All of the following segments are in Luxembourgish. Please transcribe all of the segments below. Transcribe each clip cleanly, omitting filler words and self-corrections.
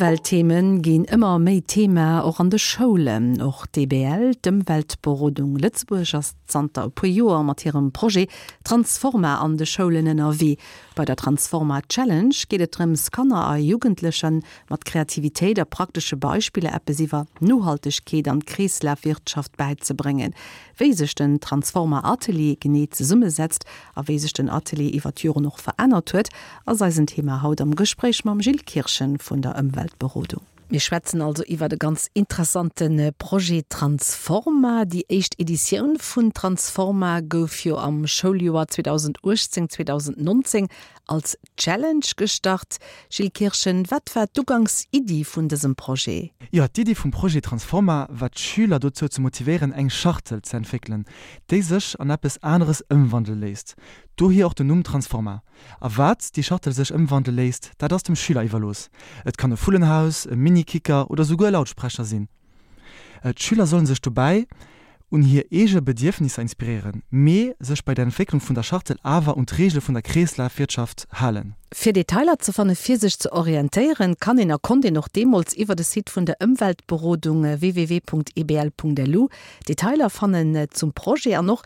Ëmwelttheme ginn ëmmer méi Thema, och an de Schoulen. Och d'EBL, d'Ëmweltberodung Lëtzebuerg, ass zanter e puer Joer mat hirem Projet Transforma an de Schoulen ënnerwee. Bei der Transforma Challenge geet et drëms, Kanner a Jugendleche mat Kreativitéit a praktesche Beispiller eppes iwwer Nohaltegkeet an d'Kreeslafwirtschaft bäizebréngen. Wéi sech den Transforma Atelier genee zesummesetzt a wéi sech den Atelier iwwer d'Joren och verännert huet, ass eisen Thema haut am Gespréich mam Gilles Kirchen vun der Ëmweltberodung. Mir schwätzen also iwwert e ganz interessante Projet Transforma. Déi éischt Editioun vun Transforma gouf jo am Schouljoer 2018, 2019 als Challenge gestart. Gilles Kirchen, wat war d'Ugangsiddi vun dësem Projet? Jo, d'Iddi vum Projet Transforma war d'Schüler dozou ze motivéieren eng Schachtel ze entwéckelen, déi sech an eppes aneres ëmwandele léisst. Dohier och den Numm Transforma. A wat déi Schachtel sech ëmwandele léisst, dat ass dem Schüler iwwerlooss. Et kann e Vullenhaus, e Mini-Kicker oder souguer e Lautsprecher sinn. D'Schüler sollen sech dobäi un hir eege Bedierfnisser inspiréieren, mee sech bei der Entwécklung vun der Schachtel awer un d'Reegele vun der Kreeslafwirtschaft halen. Fir Detailer ze fannen, fir sech ze orientéieren, kann een a konnt een och deemools iwwer de Site vun der Ëmweltberodung www.ebl.lu Detailer fannen zum Projet an och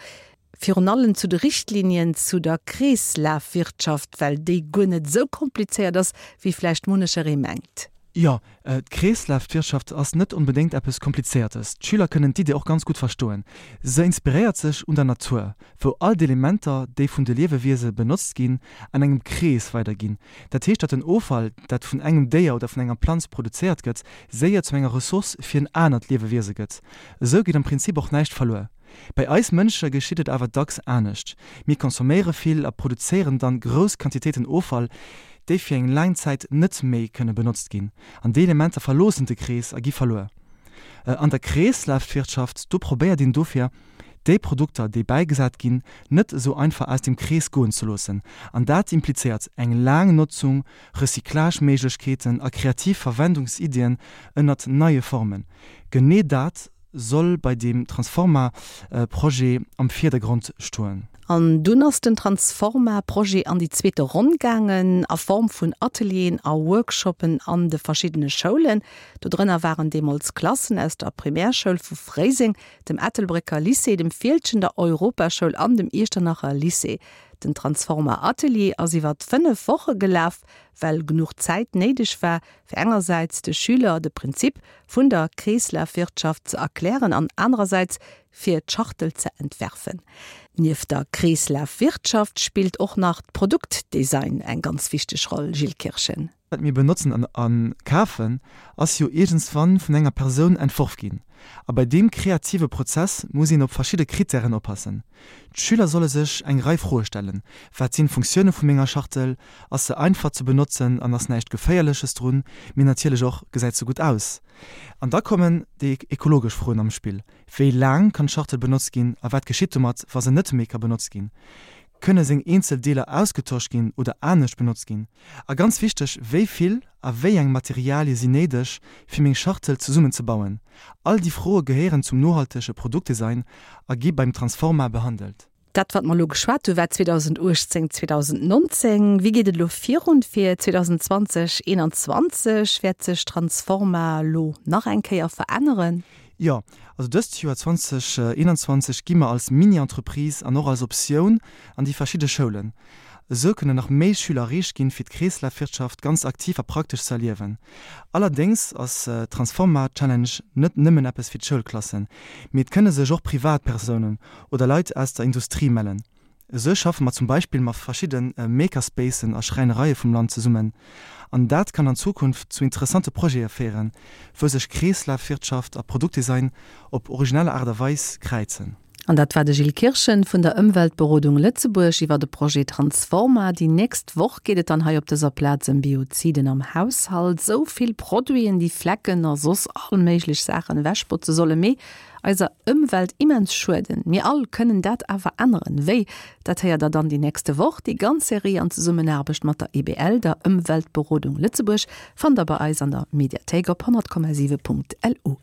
virun allem zu de Richtlinien zu der Kreeslafwirtschaft, well déi guer net esou komplizéiert ass, wéi vläicht munnecheree mengt. Jo, d'Kreeslafwirtschaft ass net onbedéngt eppes Komplizéiertes. D'Schüler kënnen d'Idee och ganz gutt verstoen. Se inspiréiert sech un der Natur, wou all d'Elementer, déi vun de Liewewiese benotzt ginn, an engem Krees weiderginn. Dat heescht, datt den Offall, dat vun engem Déier oder vun enger Planz produzéiert gëtt, séier zu enger Ressource fir en anert Liewewiese gëtt. Esou geet am Prinzip och näischt verluer. Bei eis Mënsche geschitt et awer dacks anescht, Mir consomméiere vill a produzéieren dann grouss Quantitéiten Offall, déi fir eng laang Zäit net méi kënne benotzt ginn. An déi Elementer verloossen de Krees a gi verluer. An der Kreeslafwirtschaft, do probéiert een dofir, déi Produkter, déi bäigesat ginn, net esou einfach aus dem Krees goen ze loossen. An dat implizéiert eng laang Notzung, Recyclageméiglechkeeten a kreativ Verwendungsiddien ënnert neie Formen. Genee dat soll bei deem Transforma-Projet am Virdergrond stoen. An dunn ass den Transforma-Projet an déi zweete Ronn gaangen, a Form vun Atelieren a Workshoppen an de verschiddene Schoulen. Do drënner waren deemools Klassen aus der Primärschoul vu Fréiseng, dem Ettelbrécker Lycée, dem Fieldgen, der Europaschoul an dem Iechternacher Lycée. Den Transforma-Atelier ass iwwer 5 Woche gelaf, well genuch Zäit néideg war, fir engersäits de Schüler de Prinzip vun der Kreeslafwirtschaft ze erklären an anerersäits fir d'Schachtel ze entwerfen. Nieft der Kreeslafwirtschaft spillt och nach d'Produktdesign eng ganz wichteg Roll, Gilles Kirchen. Wat mir benotzen a kafen, ass jo iergendswann vun enger Persoun entworf ginn. A bei deem kreative Prozess muss een op verschidde Krittären oppassen. D'Schüler solle sech eng Rei Froe stellen, Wat sinn d'Funktioune vu menger Schachtel? Ass se einfach ze benotzen an ass näischt Geféierleches drun? Mee natierlech och, Gesäit se gutt aus? An da kommen déi ekologesch Froen am Spill, Wéi laang kann d'Schachtel benotzt ginn a wat geschitt domat, wa se net méi ka benotzt ginn? Kënne seng eenzel Deeler ausgetosch ginn oder anescht benotzt ginn? A ganz wichteg, Wéi vill a wéi eng Materialie sinn néideg, fir meng Schachtel zesummen ze bauen? All déi Froe gehéieren zum nohaltege Produktdesign a gi beim Transforma behandelt. Dat, wat mer elo geschwat hu war 2018, 2019. Wéi geet et elo virun fir 2020, 2021? Wäert sech Transforma elo nach eng Kéier veränneren? Jo, also dëst Joer 2021 gi mer als Mini-Entreprise an och als Optioun an déi verschidde Schoulen. Esou kënnen nach méi Schüler erreecht ginn, fir d'Kreeslafwirtschaft ganz aktiv a praktesch ze erliewen. Allerdéngs ass d'Transforma Challenge net nëmmen eppes fir d'Schoulklassen, mee et kënne sech och Privatpersounen oder Leit aus der Industrie mellen. Esou schaffe mer zum Beispill mat verschidde Makerspacen a Schräinereie vum Land zesummen. An dat kann an Zukunft zu interessante Projete féieren, wou sech Kreeslafwirtschaft a Produktdesign op originell Aart a Weis kräizen. An dat war de Gilles Kirchen vun der Ëmweltberodung Lëtzebuerg iwwer de Projet Transforma. Déi nächst Woch geet et dann hei op dëser Plaz ëm Bioziden am Haushalt. Sou vill Produiten, déi Flecken a soss all méiglech Saachen ewechbotze solle, mee eiser Ëmwelt immens schueden. Mir all kënnen dat awer änneren. Wéi? Dat héiert der dann déi nächste Woch. Déi ganz Serie an Zesummenaarbecht mat der EBL, der Ëmweltberodung Lëtzebuerg, fannt der bei eis an der Mediathéik op 100,7.lu.